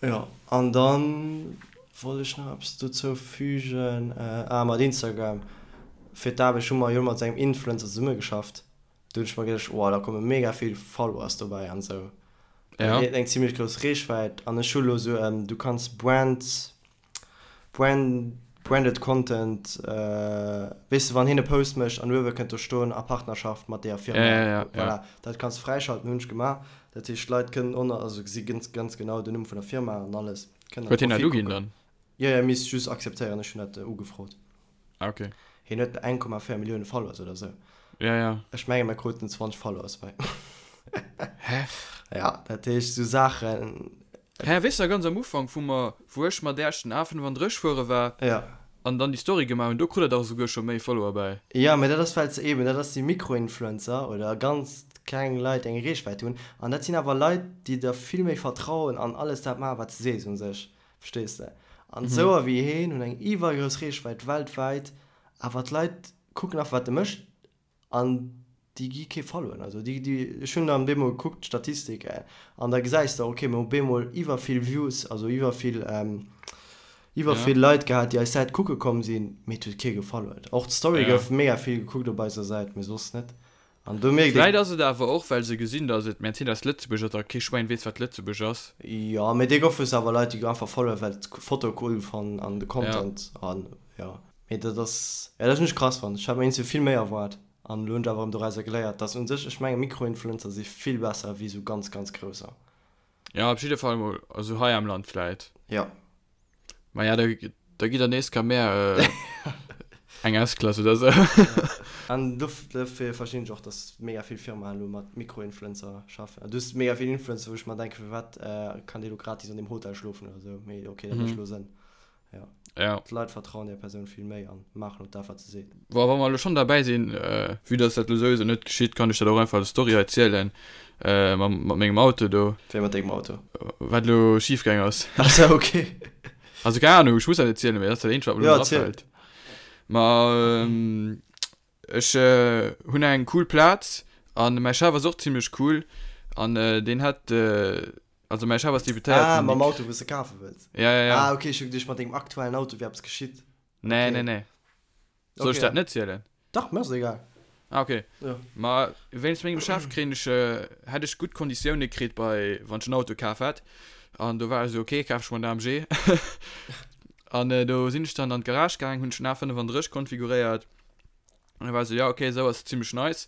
Jo, an dann wollt ech nach eppes dozou fügen. Ah, mat Instagram. Fir d'Aarbecht hu mer jo mat esou engem Influencer zesummegeschafft. Do hunn ech mer geduecht, oh, da komme mega vill Followers dobäi an esou. Ja. Hien huet eng zimmlech grouss Reechwäit an ech hu lo esou, du kanns Brand Brand, branded Content, weess de wann hien e Post mécht an uewe kënnt do stoen a Partnerschaft mat deeër Firma, Ja, ja, ja, voilà, dat kanns de fräischalten, hunn ech gemaach. Dat heescht d'Leit kënnen ënner, also gesi ganz, ganz genau den Numm vun der Firma an alles, kënnen an Huet hien dat d'Profil uginn kucken. dann? Jo, jo, misst just akzeptéieren, ech hunn dat ugefrot. Ah, okay. Hien huet 1,4 Millioune Followers oder sou. Ja, ja. Ech menge mer kruten 20 Followers bei. Hä? Ja, dat heescht sou Saachen. Hä, weess de ganz am Ufank, wou mer, wou ech mat Äerch den A35 fuere war Ja. an dann déi Story gemaach hunn, do krut der dach esouguer scho méi Follower bäi. Ja, mä dat ass well se eben, dat ass déi Mikroinfluencer oder ganz kleng Leit, déi eng Reechwäit hunn. An dat sinn awer Leit, déi der vill méi vertrauen an alles dat maachen, wat s de sees u sech. Verstees de? An esouer wéi heen hunn eng iwwergrouss Reechwäit weltwäit, awer d'Leit kucken einfach wat e mécht an déi gi kee Followen. Also déi, déi, ech hunn dann bemol gekuckt d'Statistik an da gesäis de, ok mir hu bemol iwwervill Views, also iwwervill, iwwervill Leit gehat déi eis Säit kucke komm sinn, mee et huet kee gefollowt. Och d'Story gouf mega vill gekuckt op eiser Säit, mee soss net. An do mierkt ee. Vläit ass et awer och, well se gesinn, datt et Mercedes Lëtzebuerg ass a kee Schwäin weess, wat Lëtzebuerg ass. Jo, mee dee goufe awer Leit, déi einfach followen, well d'Foto cool fannen an de Content an jo. Mee dat ass, jo, dat hunn ech krass fonnt. Ech hat mer iergendwéi vill méi erwaart an elo hunn ech awer erëm dorauser geléiert, datt un sech, ech menge Mikroinfluencer si vill besser wéi esou ganz, ganz grousser. Jo, op jidde Fall mol, also hei am Land vläit. Jo. Maja, da, da gitt der nees ka mär eng S-Klass oder sou. An dofir verstinn ech och, dass mega vill Firmaen elo mat Mikroinfluencer schaffen. Du hues mega vill Influencer, wou ech mer denken, firwat kann dee lo gratis an deem Hotel schlofen oder sou. Mee ok, dat mécht elo Sënn. Ja. Ja. D'Leit vertrauen där Persoun vill méi an maachen och dat, wat se seet. Bon, wa mer elo schonn derbäi sinn, vue dass dat elo souwisou net geschitt, kann ech dat och einfach als Story hei zielen, mam, mat mengem Auto do. Wéi mat dengem Auto? Wat elo schif gaang ass. Ach sou, ok. Also keng Ahnung, ech muss dat net zielen, mee dat ass dat eenzegt, wat mer elo Ja, erziel. afält. Ma ech hunn eng cool Plaz an mäi Chef ass och zimmlech cool an deen hätt, Also mäi Chef ass Deputéierten. Ah, mam Auto, wou s de kafe wëlls? Ja, ja, ja. Ah, okay, ech hu geduecht, mat dengem aktuellen Auto wier eppes geschitt. Nee, nee, nee. Soll ech dat net zielen? Dach, mir ass et egal. Ah, okay. Ja. Ma wéinst mengem Chef kréien ech, hätt ech gutt Konditioune kritt bei, wann ech en Auto kaf hätt. An do war ech esou, ok, kaf ech mer en AMG. An do sinn ech dann an d'Garage gaang, hunn ech den A35 konfiguréiert. An da war ech esou, ja ok, esou ass zimmlech nice.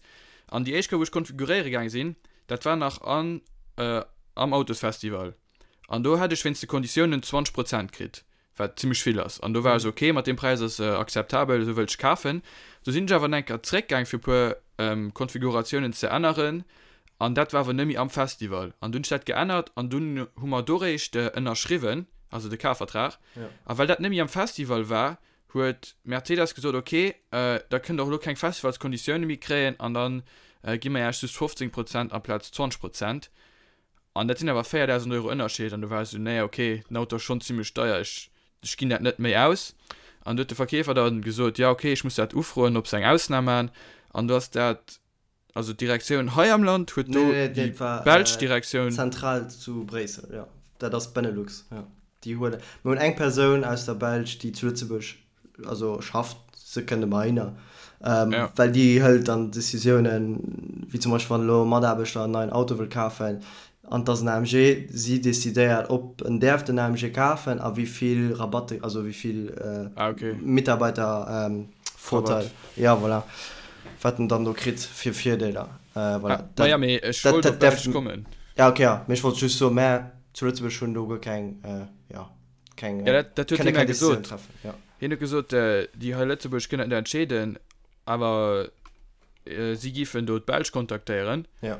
An déi éischt Kéier, wou ech konfiguréiere gaang sinn, dat war nach an am Autosfestival. An do hat ech wéinst de Konditiounen 20 Prozent kritt, wat zimmlech vill ass. An do war ech esou, ok, mat deem Präis ass akzeptabel, esou wëllt ech kafen. Du sinn ech awer nach eng Kéier zréckgaang fir e puer Konfiguratiounen ze änneren an dat war awer net méi am Festival. An dunn hunn ech dat geännert an dunn hu mer do réischt ënnerschriwwen, also de Kafvertrag. A well dat net méi am Festival war, huet Mercedes gesot, ok, da kënnt der och elo keng Festivalskonditioune méi kréien an da gi mer iech just 15 Prozent amplaz 20 Prozent. An dat sinn awer 4.000 Euro Ënnerscheed an do war ech esou, nee ok, den Auto ass schonn zimmlech deier, ech, ech ginn dat net méi aus. An du huet de Verkeefer dann gesot, ja ok, ech muss dat ufroen, ob se eng Ausnam maachen. An du ass dat, also d'Direktioun hei am Land huet do Nee, nee, déi dat war belsch Direktioun. Zentral zu Bréissel, jo. Dat ass d'Benelux, jo. Déi huelen, mir hunn eng Persoun aus der Belsch, déi zu Lëtzebuerg also schafft, se kënnt ëmmer hinner, Ja. well déi hëlt dann Decisiounen, wéi zum Beispill wann elo e Mataarbechter en neien Auto wëll kafen an et ass en AMG, si decidéiert, ob en däerf den AMG kafen a wéi vill Rabatt, also wéi vill Ah, okay. Mitarbeitervorteil, Rabatt. ja voilà, wat en dann do kritt fir Virdeeler. Voilà, Ah, ma ja, mee ech dat wollt dat op däerf, d'Belsch kommen. ja okay, ja, mee ech wollt just soen, mä zu Lëtzebuerg hunn do guer keng, jo. Keng, ja, dat, dat huet hie mir gesot. Treffen, ja. Hien huet gesot, äh, déi hei Lëtzebuerg kënnen dat net entscheeden, awer äh, si giffen do d'Belsch kontaktéieren. Ja.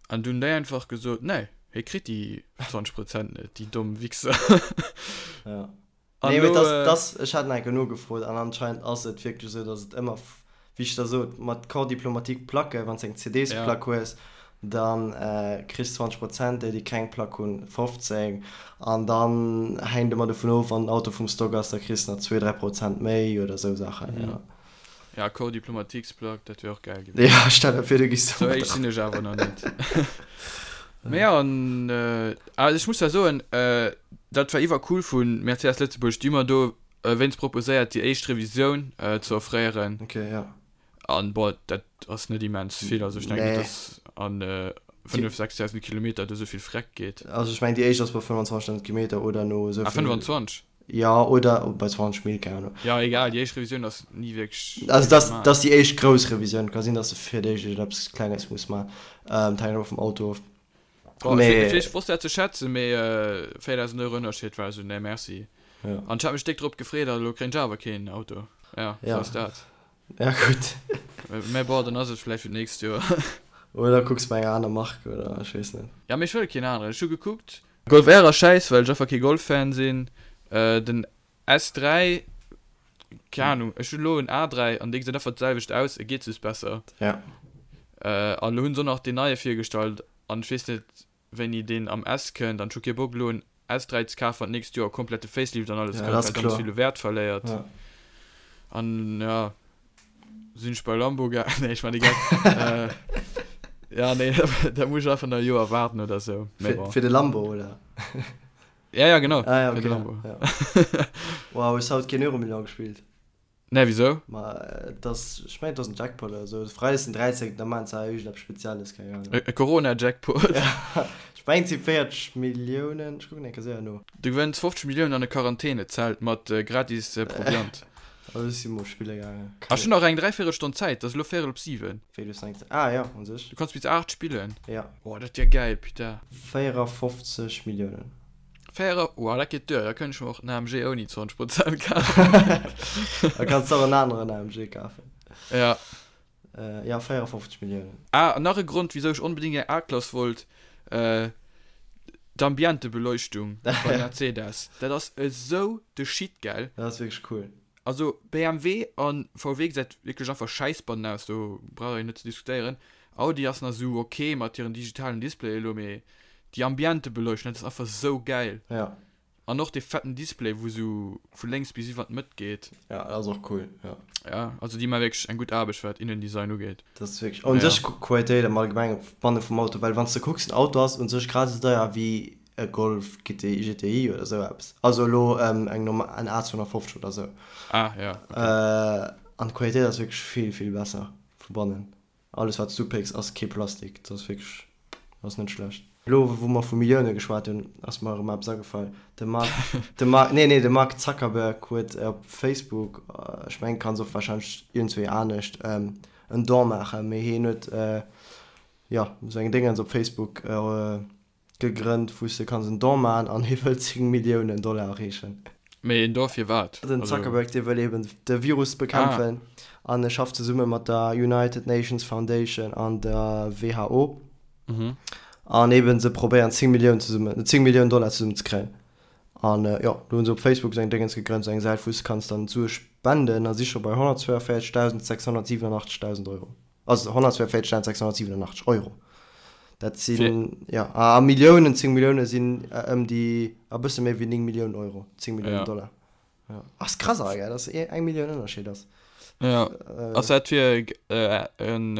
An dunn déi einfach gesot, nee, hie kritt déi 20 Prozent net, déi domm Wichser. Ja. An Nee, mee lo, das, äh, das, ech hat nach eng Kéier nogefrot an anscheinend ass et wierklech esou, dass et ëmmer wéi ech der sot, mat Corps diplomatique Placke, wann s eng CD-s-Plack hues, da kriss 20 Prozent, déi déi keng Plack hunn 15 an dann hänkt ëmmer dovun of, wann den Auto vum Stock ass, da kriss nach zwee, 3 Prozent méi oder esou Saachen, jo. Ja, Corps diplomatique-s-Plack, dat wier och gäil gewiescht. Ja, stell der vir, du giss do mat. Sou héich sinn ech awer nach net. Mee jo, an also ech muss da soen, dat war iwwercool vu Mercedes Lëtzebuerg, déi hu mer do wéinst proposéiert déi éischt Revisioun ze offréieren. Ok, ja. An bon, dat ass net immens vill, also ech denken net, Nee. dass an 5, 6.000 Kilometer do esou vill Freck geet. Also ech mengen déi éischt ass bei 25.000 Kilometer oder no esou Ah, vill. 25? Ja, oder bei 20 Mil, keng Ahnung. Ja, egal, déi éischt Revisioun ass ni wierklech Also vill dat gemaach. dat ass déi éischt grouss Revisioun. Ka sinn, dass de fir d'éischt iergendeppes Klenges muss maachen. Dat hänkt ëmmer vum Auto of. Boah, Mee. ech, ech wosst dat ze schätzen, mee 4000 Euro Ënnerscheed war esou, nee merci. Ja. An ech hat mech déck drop gefreet a lo kréien ech awer keen Auto. Ja, sou Ja. ass dat. Ja, gutt. Mä bon, dann ass et vläicht fir d'nächst Joer. Oder kucks bei enger aner Mark oder ech weess net. Ja, mee ech wëll keen aneren. Ech hu gekuckt. Golf R ass schäiss, well ech einfach kee Golf-Fan sinn. Den S3, keng Ahnung, ech hunn elo en A3 an dee gesäit einfach d'selwecht aus, e geet just besser. Ja. An elo hunn se och nach deen neie virgestallt an ech weess net wéini deen am S kënnt an ech hu kee Bock elo en S3 ze kafen wann d'nächst Joer komplett de Facelift an alles Ja, kënnt, dat ass well dann kloer. vill u Wäert verléiert. Ja. An ja, sinn ech bei Lambo ga, nee ech man de Geck. Ja nee, da muss ech einfach nach e Joer waarden oder sou, mee Fir, bon. fir de Lambo, oder? Ja, ja, genau. Ah, ja, Fir okay. de Lambo. Ja. Wow, hues haut keen Euromillion gespillt? Nee, wisou? Ma et ass, ech mengen et ass en Jackpot oder sou. Freides den 13. Da maachen se hei iergendeppes Spezielles, keng Ahnung. E Corona-Jackpot? Ja, ech mengen et si 40 Milliounen. Ech kucken eng Kéier séier no. Du gewënns 50 Milliounen an e Quarantänezelt mat gratis Proviant. Also ech si mol spille gaangen. Ah, ech hunn nach eng dräivéierel Stonn Zäit, et ass elo véierel op 7. Wéi du s eng Ah jo, un sech. Du kanns bis 8 spillen. Ja. Oh, dat wier gäil, putain. 54 Milliounen. Véier, oh, dat geet duer, da kënnt ech mer och en AMG ouni 20 Prozent kafen. Da kanns de och en aneren AMG kafen. Ja. Ja, 54 Milliounen. Ah, an nach e Grond, wisou ech onbedéngt eng A-Klass wollt, d'Ambientebeleuchtung beim Mercedes. Dat ass esou de Shit, gell? Dat ass wierklech cool. Also BMW an VW gesäit wierklech einfach schäiss bannen aus, do brauch een net ze diskutéieren. Audi ass nach esou ok mat hiren digitalen Displaye elo, mee déi Ambientebeleuchtung, dat ass einfach esou gäil. Ja. An och dee fetten Display wou esou vu lénks bis iwwer d'Mëtt geet. Ja, dat ass och cool, ja. Ja, also déi maa wierklech eng gutt Aarbecht wat Innendesign ugeet. Dat ass wierklech, un sech Qualitéit am Allgemengen banne vum Auto, well wann s de kucks, den Auto ass un sech grad esou deier wéi e Golf GTI, GTI oder esou eppes, also elo eng normal, en A250 oder esou. Ah, ja, okay. An d'Qualitéit ass wierklech vill, vill besser vu bannen. Alles wat s du upécks ass kee Plastik, dat ass wierklech, ass net schlecht. Elo wou mer vu Millioune geschwat hunn, ass mer erëm eppes agefall. De Mark, de Mark, nee, nee, de Mark Zuckerberg huet op Facebook, ech mengen kanns och warscheinlech iergendzwéi anescht, en Don maachen, mee hien huet, jo, esou eng Déngens op Facebook gegrënnt, wou s de kanns en Don maachen an hie wëll 10 Milliounen Dollar erreechen. Mee en Don fir wat? Den Zuckerberg, dee wëll eben de Virus bekämpfen an e schafft zesumme mat der United Nations Foundation an der WHO. An eben se probéieren 10 Milliounen zesummen, 10 Milliounen Dollar zesummen ze kréien. An jo, do hunn se op Facebook esou eng Déngens gegrënnt, esou eng Säit wou s de kanns dann d'Sue spenden a si scho bei 142.687 Dausend Euro. Also 142.687 Euro. Dat sinn, jo, a Milliounen, 10 Millioune sinn ëm déi, e bësse méi wéi 9 Milliounen Euro, 10 Milliounen Dollar. Ja. Ass krass awer, gell, dass eng Millioun Ënnerscheed ass. Ja. Ass dat fir eng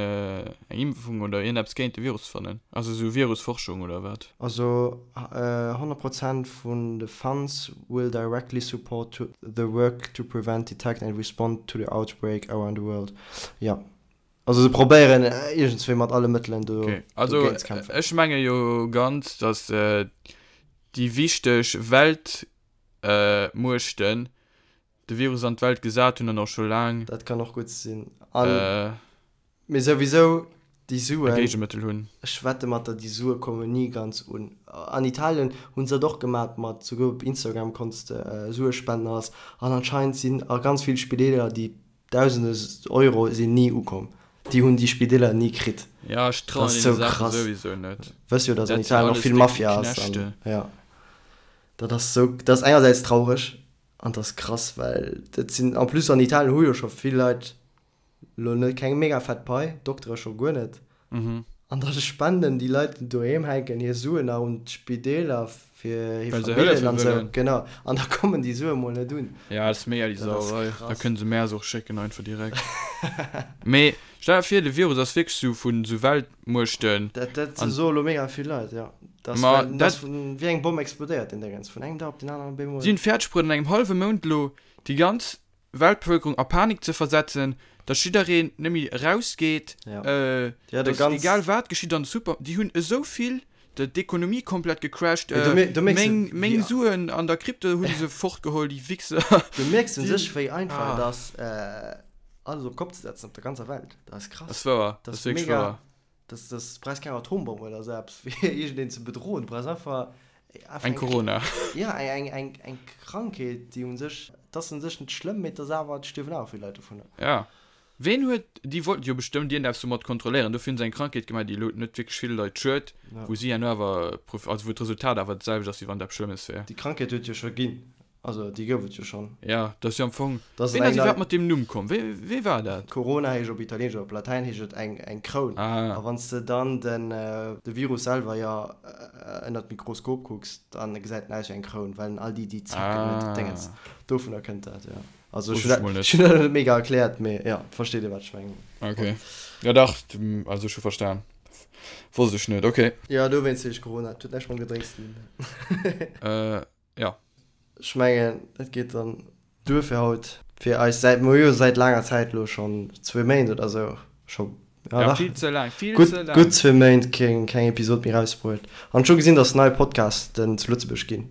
Impfung oder iergendeppes géint de Virus ze fannen? Also esou Virusforschung oder wat? Also 100 Prozent vun de Funds will directly support to the work to prevent, detect and respond to the outbreak around the world. Ja. Also se probéieren iergendswéi mat alle Mëttelen do Okay. Also dogéint ze kämpfen. ech menge jo ganz, dass déi wichteg Welt Muechten de Virus an d'Welt gesat hunn an och scho laang. Dat kann och gutt sinn. An, mee souwisou, déi Suen. E Géigemëttel hunn. Ech wette mat der, déi Sue kommen ni ganz un. An Italien hu se dat och gemat mat, souguer op Instagram konns de Sue spenden alles. An anscheinend sinn a ganz vill Spideeler déi Dausende Euro sinn ni ukomm. Déi hunn déi Spideeler ni kritt. Jo, ech trauen deene Saache souwisou net. Wëss jo, datt an Italien och vill Mafia ass. Jo. Dat ass sou, dat ass engersäits traureg an dat ass krass, well dat sinn, en plus an Italien hu jo scho vill Leit lo net keng mega fett Pai, Doktere scho guer net, an da spenden déi Leit déi doheem hänken hir Suen nach un d'Spideeler fir hir Familljen an sou, genau, an da kommen déi Sue mol net un. Jo, dat ass mega déi Sauerei, da kënne se mär se och schécken einfach direkt. Mee stell der vir de Virus ass wierklech sou vun sou Weltmuechten. Dat dat soe lo mega vill Leit, jo. Dat Ma well, dat ass vun, wéi eng Bomm explodéiert deen Déngens, vun engem Dag op den aneren op eemol. Si hunn fäerdeg bruet an engem hallwe Mount elo déi ganz Weltbevëlkerung a Panik ze versetzen, datt jiddereen net méi erausgeet, Ja. Ja, de datt ganz. egal wat geschitt an de Super, déi hunn esou vill, de d'Ekonomie komplett gecrashed, Mee do mir, do mierks de, meng, meng wéi. Suen an der Krypto hu se fortgeholl, déi Wichser. Do mierks de sech, wéi einfach et ass, alles op d'Kopp ze setzen op der ganzer Welt. Dat ass krass. Dat ass wouer, dat ass wierklech wouer. Das, das brauchst keng Atombomm oder sou eppes fir iergendeen ze bedroen. Du brauchs einfach, einfach eng Corona. Ja, eng, eng, eng, eng Krankheet, déi un sech, et ass un sech net schlëmm, mee et ass awer, et stierwen awer vill Leit dovunner. Ja. Ween huet, déi wollten jo bestëmmt iergendeppes domat kontrolléieren, dofir hunn se eng Krankheet gemaach, déi elo net wierklech ville Leit schued, wou si herno awer, also wou d'Resultat awer dat selwecht ass, wéi wann et eppes Schlëmmes wär. Déi Krankheet huet jo scho ginn. Also déi gouf et jo schonn. Jo, dat ass jo am Fong. Dat ass Ween ass iwwerhaapt mat deem Numm komm? Wee, wee war dat? Corona heescht op Italieenesch oder op Latäin heescht et eng, eng Kroun. Ah. A wann s de dann den, de Virus selwer jo ënnert d'Mikroskop kucks, dann gesäit en aus wéi eng Kroun, well en all déi, déi Zacken huet, Ah. Déngens. Dovunner kënnt dat, jo. Also ech hunn dat, ech hunn dat net mega erkläert, mee jo, versteet ee wat ech mengen. Ok. Jo dach, also ech hu verstan. Wosst ech net, ok. Jo, dowéinst heescht Corona. Et huet näischt mam Gedrénks ze dinn. Jo. Ech mengen, dat geet dann duer fir haut. Fir eis säit, mer hu jo säit laanger Zäit elo schonn zwee Méint oder esou scho, ja dach, vill ze laang, vill ze laang, gutt zwee Méint keng, keng Episod méi erausbruet. An ech hu gesinn, datt nei Podcasten zu Lëtzebuerg ginn.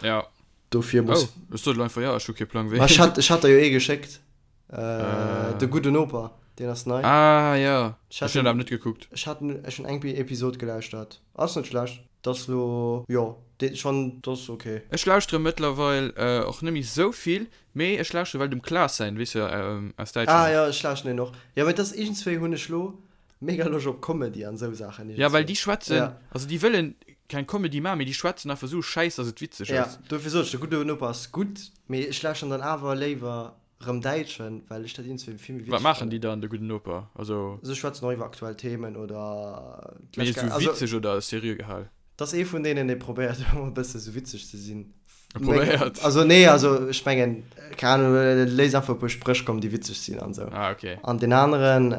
Ja. Dofir muss. Oh, ech sot elo einfach jo, ech hu kee Plang wéi. Ma ech hat, ech hat der jo ee geschéckt, De gudden Noper, deen ass nei. Ah jo, ech hunn dat awer net gekuckt. Ech hat, ech hunn eng Episod gelauschtert, ass net schlecht. Dat ass lo, jo, dee schonn, dat ass ok. Ech lauschtere mëttlerweil och net méi sou vill, mee ech lauschtere well dem Klaas säin, weess de, aus Däitschland. Ah jo, ech lauschteren deen och. Jo, mee et ass iergendswéi hunn ech lo mega Loscht op Comedy an esou Saachen iergendswéi. Ja, well déi schwätzen, also déi wëllen keng Comedy maachen, mee déi schwätzen einfach sou Schäiss, dass et witzeg ass. Ja, dofir sot ech, de gudde Noper ass gutt, mee ech lauschteren dann awer léiwer Rëm Däitschen, well ech dat iergendswéi vill méi witzeg Wat maachen déi dann, de gudden Noper? Also. Se schwätzen och iwwer aktuell Themen oder Mee esou witzeg oder seriö gehal? Dat ass ee vun deenen, dee probéiert ëmmer e bësse sou witzeg ze sinn. Probéiert? Also nee, also ech mengen, keng Ahnung, e léisst einfach e puer Spréch kommen, déi witzeg sinn an esou. Ah, okay. An deen aneren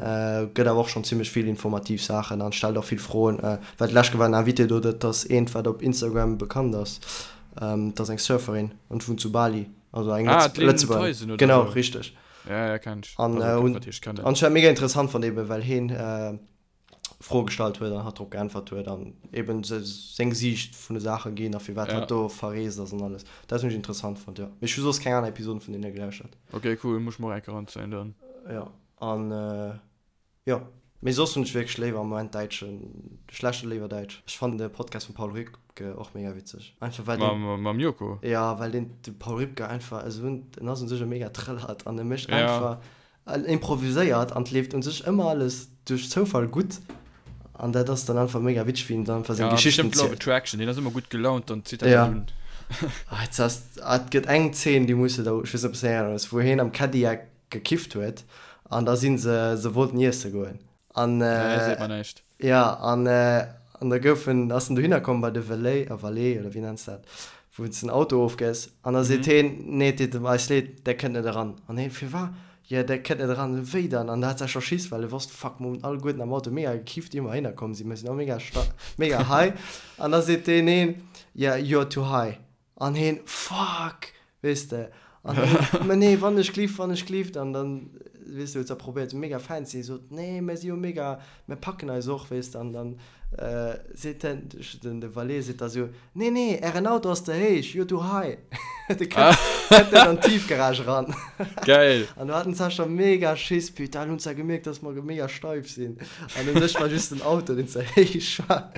gëtt awer och schonn zimmlech vill informativ Saachen an stellt och vill Froen. Well d'lescht war en Invité do, dat ass eent, wat op Instagram bekannt ass. Dat ass eng Surferin an wunnt zu Bali. Also eng ah, Lëtzebuerger. Genau, so. Richteg. Ja, ja, kenn ech. An, also, äh, und, an ech mega interessant fand eben, well heen äh, Froe gestallt huet an hatt drop geäntwert huet an eben seng Siicht vun de Saache ginn a firwat hatt do verreest ass an alles. Dat hunn ech interessant fonnt, jo. Mee ech hu soss keng aner Episoden vun deene gelauschtert. Ok, cool, muss ech mer och eng Kéier eranzéien dann. Jo, an jo, mee soss hunn ech wierklech léiwer am Moment däitschen, ech lauschteren léiwer däitsch. Ech fannen de Podcast vum Paul Rübke och mega witzeg, einfach well deen. Mam Joko? Jo, well deen, de Paul Rübke einfach esou en, en ass un sech e mega Trëllert an e mécht einfach En improviséiert an 't leeft un sech ëmmer alles duerch Zoufall gutt an dat ass dann einfach mega witzeg wéi en dann einfach seng Ja, Geschichten bestimmt Law of zielt. Attraction, deen ass ëmmer gutt gelaunt, dann zitt dat Ja. dat un. Ah, et ass, ah, et gëtt eng Zeen déi muss de der, ech weess net ob s de erënners, wou heen am Cadillac gekifft huet an da si se, se wollten iesse goen An, Nee, seet mer näischt. ja, an, an da gouf en, ass en dohinner komm bei de Valet, a Valet, oder wéi nenns dat, wou s den Auto ofgëss, an da seet heen, Nee, et deet eis leed, där kënnt net eran. An heen, Firwat? Jo, där kënnt net eran. Wéi dann? An da hat se scho Schiss, well e wosst, Fuck, mer hunn alleguerten am Auto mega gekifft, ier mer heihinner komm sinn, mer sinn all mega sta, mega high. An da seet deen een, Yeah, you're too high. An heen, Fuck! Weess de? An heen, Ma nee, wann ech glift, wann ech glift. An dann, weess de, huet se probéiert, esou mega fein ze sinn, sot, Nee, mär si jo mega, mär packen eis och, weess de. An dann seet den, den, de Valet seet da esou, Nee, nee, ären Auto ass ze héich, you're too high. De kënnt, kënnt net an d'Tiefgarage eran. Geil! An do haten se scho mega Schiss, Putain, elo hunn se gemierkt, dass mer mega steif sinn. An u sech war just den Auto, deen ze héich war.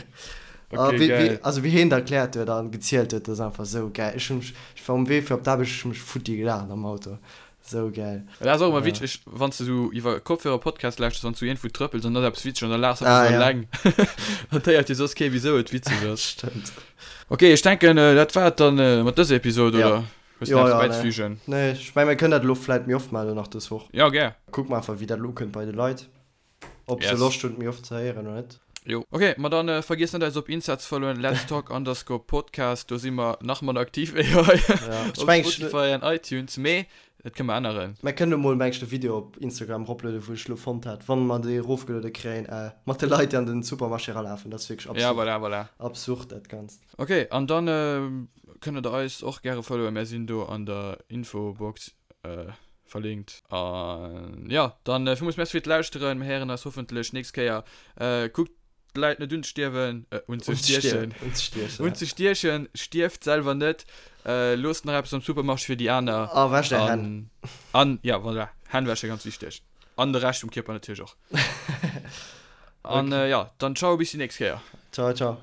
Ah, Okay, wéi, wéi, geil. also wéi heen dat erkläert huet an gezielt huet, dat ass einfach sou gäil. Ech hunn mech, ech war um Wee fir op d'Aarbecht, ech hunn mech futti gelaacht am Auto. Sou gäil. Dat ass och ëmmer Ja. witzeg, wann s de sou iwwer Kopfhörer Podcast lauschters, wann s du iergendwou trëppels an da ass eppes witzeg an da laachs einfach Ah, sou ja. eleng. Dann héiert jo soss kee wisou et witzeg ass. Stëmmt. Ok, ech denken dat war et dann mat dëser Episod, Ja. oder? Hues du Jo, nach eppes ja, nee. bäizefügen? Nee, ech meng mir kënnen dat elo vläit méi oft maachen elo nach dës Woch. Jo, gär. Kucke mer einfach wéi dat elo ukënnt bei de Leit. Ob se Yes. Loscht hunn et méi oft ze héieren oder net. Jo. Ok, ma dann vergiesst net eis op Insta ze followen, Let's Talk underscore Podcast, do si mer nach manner aktiv wéi hei Ja, ech op meng, ech, Spotify an iTunes, mee dat kënne mer änneren. Mer kënnen emol meng ech de Video op Instagram eroplueden, wou ech elo fonnt hat, wann mer déi erofgeluede kréien, mat de Leit déi an den Supermarché eralafen. Dat ass wierklech Ja, absurd. voilà, voilà. Absurd dat Ganzt. Ok, an dann kënne der eis och gäre followen, mär sinn do an der Infobox verlinkt. An jo, dann villmools Merci fir d'Lauschteren. Mir héieren eis hoffentlech nächst Kéier. Kuckt d'Leit net unzestierwen, unzestiechen, unzestiechen, stierft selwer net, loosst nach eppes am Supermarché fir déi aner. A wäscht är Hänn. An, ja, voilà, Hänn wäsche, ganz wichteg. An de Rescht vum Kierper natierlech och. An jo, dann ciao, bis déi nächst Kéier. Ciao, ciao.